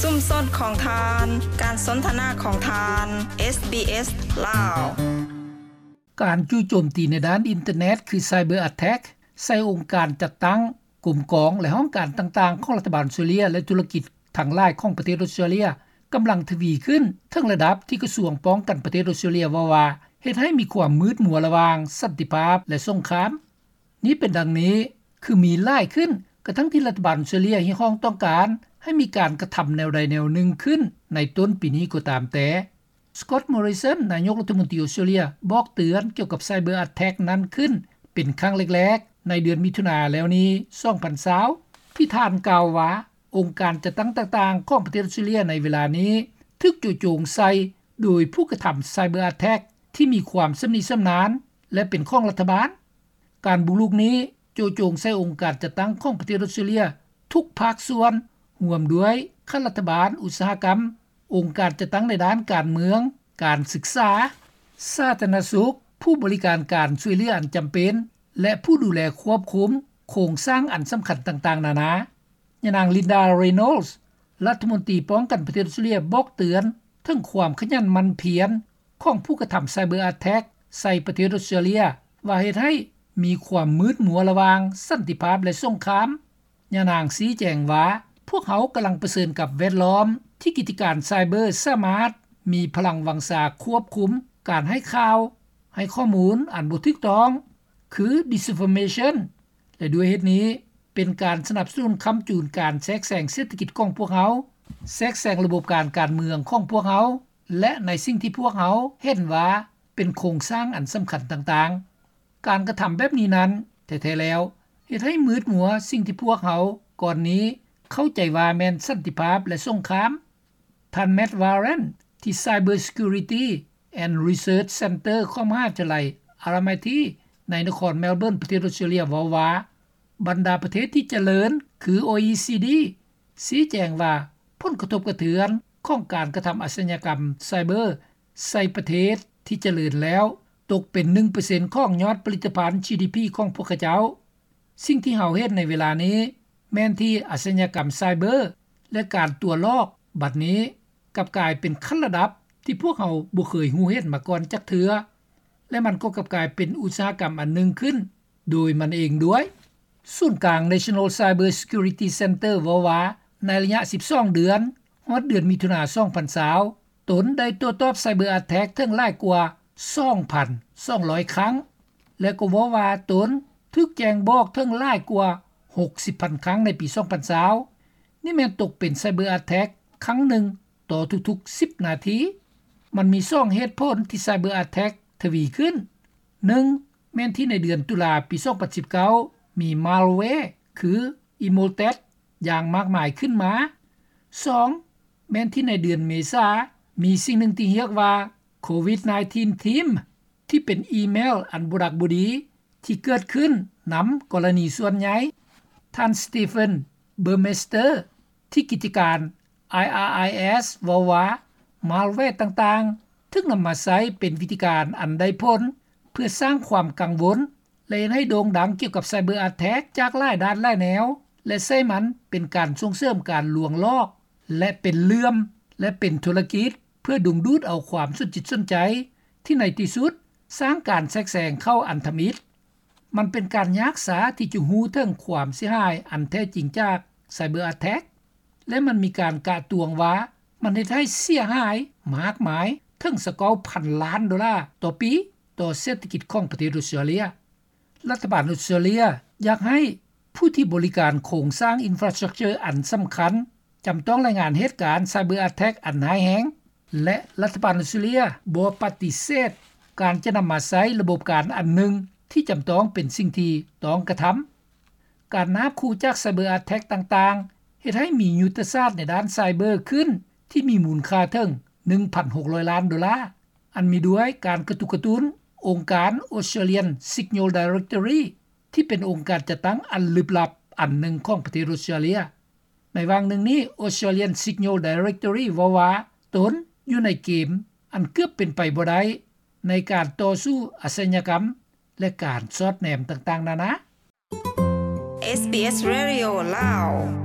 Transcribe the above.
ຊຸມຊົນຂອງທ່ານ, ການສົນທະນາຂອງທ່ານ, ເອສບີເອສ ລາວ. ການຈູ່ໂຈມຕີໃນດ້ານອິນເຕີເນັດ ຄື Cyber Attack ໃສ່ອົງການຈັດຕັ້ງ, ກົມກອງ ແລະ ຫ້ອງການຕ່າງໆຂອງລັດຖະບານອົດສະຕຣາເລຍ ແລະ ທຸລະກິດທັງຫຼາຍຂອງປະເທດອົດສະຕຣາເລຍ ກຳລັງທະວີຂຶ້ນ ເຖິງລະດັບທີ່ກະຊວງປ້ອງກັນປະເທດອົດສະຕຣາເລຍເວົ້າວ່າ ເຮັດໃຫ້ມີຄວາມມືດມົວລະຫວ່າງສັນຕິພາບ ແລະ ສົງຄາມ. ນີ້ເປັນດັ່ງນີ້ ຄືມີຫຼາຍຂຶ້ນ ກະທັ່ງທີ່ລັດຖະບານອົດສະຕຣາເລຍຮຽກຮ້ອງຕ້ອງການໃຫ້ມີການກະທຳແນວໃດແນວໜຶ່ງຂຶ້ນໃນຕົ້ນປີນີ້ກໍຕາມແຕ່. Scott Morrison ນາຍົກລັດຖະມົນຕີອົດສະຕຣາເລຍ ບອກເຕືອນກ່ຽວກັບ Cyber Attack ນັ້ນຂຶ້ນເປັນຄັ້ງແລກໆ ໃນເດືອນມິຖຸນາແລ້ວນີ້ ສອງພັນຊາວ ທີ່ທ່ານກ່າວວ່າ ອົງການຈັດຕັ້ງຕ່າງໆຂອງປະເທດອົດສະຕຣາເລຍໃນເວລານີ້ ຖືກໂຈະໂຈງໃສ່ໂດຍຜູ້ກະທຳ Cyber Attack ທີ່ມີຄວາມຊຳນິຊຳນານ ແລະ ເປັນຂອງລັດຖະບານ. ການບຸກລຸກນີ້ໂຈະໂຈງໃສ່ອົງການຈັດຕັ້ງຂອງປະເທດອົດສະຕຣາເລຍທຸກພາກສ່ວນ, ຮ່ວມດ້ວຍຂັ້ນລັດຖະບານ, ອຸດສາຫະກຳ, ອົງການຈັດຕັ້ງໃນດ້ານການເມືອງ, ການສຶກສາ, ສາທາລະນະສຸກ, ຜູ້ບໍລິການການຊ່ວຍເຫຼືອອັນຈຳເປັນ ແລະ ຜູ້ດູແລຄວບຄຸມໂຄງສ້າງອັນສຳຄັນຕ່າງໆນານາ. ຍານາງ Linda Reynolds ລັດຖະມົນຕີປ້ອງກັນປະເທດອົດສະຕຣາເລຍ ບອກເຕືອນເຖິງຄວາມຂະຫຍັນໝັ່ນພຽນຂອງຜູ້ກະທຳ Cyber Attack ໃສ່ປະເທດອົດສະຕຣາເລຍ ວ່າເຮັດໃຫ້ມີຄວາມມືດມົວລະຫວ່າງສັນຕິພາບ ແລະ ສົງຄາມ. ຍານາງຊີ້ແຈງວ່າ ພວກເຮົາກຳລັງປະເຊີນກັບແວດລ້ອມທີ່ກິດຈະການໄຊເບີສາມາດມີພະລັງວັງຊາຄວບຄຸມການໃຫ້ຂ່າວ, ໃຫ້ຂໍ້ມູນອັນບໍ່ຖືກຕ້ອງ ຄື disinformation ແລະ ດ້ວຍເຫດນີ້ ເປັນການສະໜັບສະໜູນຄ້ຳຈູນການແຊກແຊງເສດຖະກິດຂອງພວກເຮົາ, ແຊກແຊງລະບົບການການເມືອງຂອງພວກເຮົາ ແລະ ໃນສິ່ງທີ່ພວກເຮົາເຫັນວ່າເປັນໂຄງສ້າງອັນສຳຄັນຕ່າງໆ. ການກະທຳແບບນີ້ນັ້ນ ແທ້ໆແລ້ວ ເຮັດໃຫ້ມືດມົວສິ່ງທີ່ພວກເຮົາກ່ອນນີ້ເຂົ້າໃຈວ່າແມ່ນສັນຕິພາບ ແລະ ສົງຄາມ. ທ່ານ Matt Warren ທີ່ Cyber Security and Research Center ຂອງມະຫາວິທະຍາໄລ RMIT ໃນນະຄອນ Melbourne ປະເທດ Australia ເວົ້າວ່າ ບັນດາປະເທດທີ່ຈະເລີນ ຄື OECD ຊີ້ແຈງວ່າ ຜົນກະທົບກະເທືອນຂອງການກະທຳອາຊຍາກຳໄຊເບີໃສ່ປະເທດທີ່ຈະເລີນແລ້ວ ຕົກເປັນ ໜຶ່ງເປີເຊັນ ຂອງຍອດຜະລິດຕະພັນ GDP ຂອງພວກເຂົາເຈົ້າ. ສິ່ງທີ່ເຮົາເຫັນໃນເວລານີ້ ແມ່ນທີ່ອາຊຍາກຳໄຊເບີ ແລະ ການຕົວະຫຼອກ ບັດນີ້ກັບກາຍເປັນຂັ້ນລະດັບທີ່ພວກເຮົາບໍ່ເຄີຍຮູ້ເຫັນມາກ່ອນຈັກເທື່ອ ແລະ ມັນກໍກັບກາຍເປັນອຸດສາຫະກຳອັນໜຶ່ງຂຶ້ນໂດຍມັນເອງດ້ວຍ. ສູນກາງ National Cyber Security Center ເວົ້າວ່າ ໃນໄລຍະ ສິບສອງເດືອນ ຮອດເດືອນມິຖຸນາ ສອງພັນຊາວ ຕົນໄດ້ໂຕ້ຕອບ Cyber Attack ເຖິງຫຼາຍກວ່າ ສອງພັນສອງຮ້ອຍ ຄັ້ງ ແລະ ກໍເວົ້າວ່າຕົນຖືກແຈ້ງບອກເຖິງຫຼາຍກວ່າ ຫົກສິບພັນ ຄັ້ງໃນປີ ສອງພັນຊາວ. ນີ້ແມ່ນຕົກເປັນ Cyber Attack ຄັ້ງໜຶ່ງຕໍ່ທຸກໆ ສິບນາທີ. ມັນມີສອງເຫດຜົນທີ່ Cyber Attack ທະວີຂຶ້ນ. ໜຶ່ງ ແມ່ນທີ່ໃນເດືອນຕຸລາປີ ສອງພັນສິບເກົ້າ ມີ malware ຄື Emotet ຢ່າງມາກມາຍຂຶ້ນມາ. ສອງ ແມ່ນທີ່ໃນເດືອນເມສາ ມີສິ່ງໜຶ່ງທີ່ຮຽກວ່າ ໂຄວິດ 19 ທີມ ທີ່ເປັນອີເມວອັນບໍ່ດັກບໍ່ດີທີ່ເກີດຂຶ້ນນຳກໍລະນີສ່ວນໃຫຍ່. ທ່ານ Stephen Burmeister ທີ່ກິດຈະການ IRIS ເວົ້າວ່າ malware ຕ່າງໆ ຖືກນຳມາໃຊ້ເປັນວິທີການອັນໄດ້ຜົນ ເພື່ອສ້າງຄວາມກັງວົນ ແລະ ເຮັດໃຫ້ໂດ່ງດັງກ່ຽວກັບ Cyber Attack ຈາກຫຼາຍດ້ານຫຼາຍແນວ ແລະ ໃຊ້ມັນເປັນການສົ່ງເສີມການລວງຫຼອກ ແລະ ເປັນເລື່ອມ ແລະ ເປັນທຸລະກິດ ເພື່ອດຶງດູດເອົາຄວາມສົນຈິດສົນໃຈ ທີ່ໃນທີ່ສຸດສ້າງການແຊກແຊງເຂົ້າອັນທຳອິດ. ມັນເປັນການຍາກຊ້າທີ່ຈະຮູ້ເຖິງຄວາມເສຍຫາຍອັນແທ້ຈິງຈາກ Cyber Attack ແລະ ມັນມີການກະຕວງວ່າມັນເຮັດໃຫ້ເສຍຫາຍມາກມາຍເຖິງ ຊາວເກົ້າພັນ ລ້ານໂດລາຕໍ່ປີ ຕໍ່ເສດຖະກິດຂອງປະເທດອົດສະຕຣາເລຍ. ລັດຖະບານອົດສະຕຣາເລຍຢາກໃຫ້ຜູ້ທີ່ບໍລິການໂຄງສ້າງ infrastructure ອັນສຳຄັນ ຈຳຕ້ອງລາຍງານເຫດການ Cyber Attack ອັນຮ້າຍແຮງ ແລະ ລັດຖະບານອົດສະຕຣາເລຍບໍ່ປະຕິເສດການຈະນຳມາໃຊ້ລະບົບການອັນໜຶ່ງທີ່ຈຳຕ້ອງເປັນສິ່ງທີ່ຕ້ອງກະທຳ. ການນາບຂູ່ຈາກ Cyber Attack ຕ່າງໆ ເຮັດໃຫ້ມີຍຸດທະສາດໃນດ້ານໄຊເບີຂຶ້ນທີ່ມີມູນຄ່າເຖິງ ໜຶ່ງພັນຫົກຮ້ອຍ ລ້ານໂດລາ ອັນມີດ້ວຍການກະຕຸກກະຕຸ້ນອົງການ Australian Signal Directorate ທີ່ເປັນອົງການຈັດຕັ້ງອັນລຶບລັບອັນໜຶ່ງຂອງປະເທດອົດສະຕຣາເລຍ. ໃນຫວ່າງໜຶ່ງນີ້ Australian Signal Directorate ເວົ້າວ່າຕົນຢູ່ໃນເກມອັນເກືອບເປັນໄປບໍ່ໄດ້ ໃນການຕໍ່ສູ້ອາຊະຍາກຳ ແລະ ການສອດແນມຕ່າງໆນານາ. ເອສບີເອສ Radio ລາວ.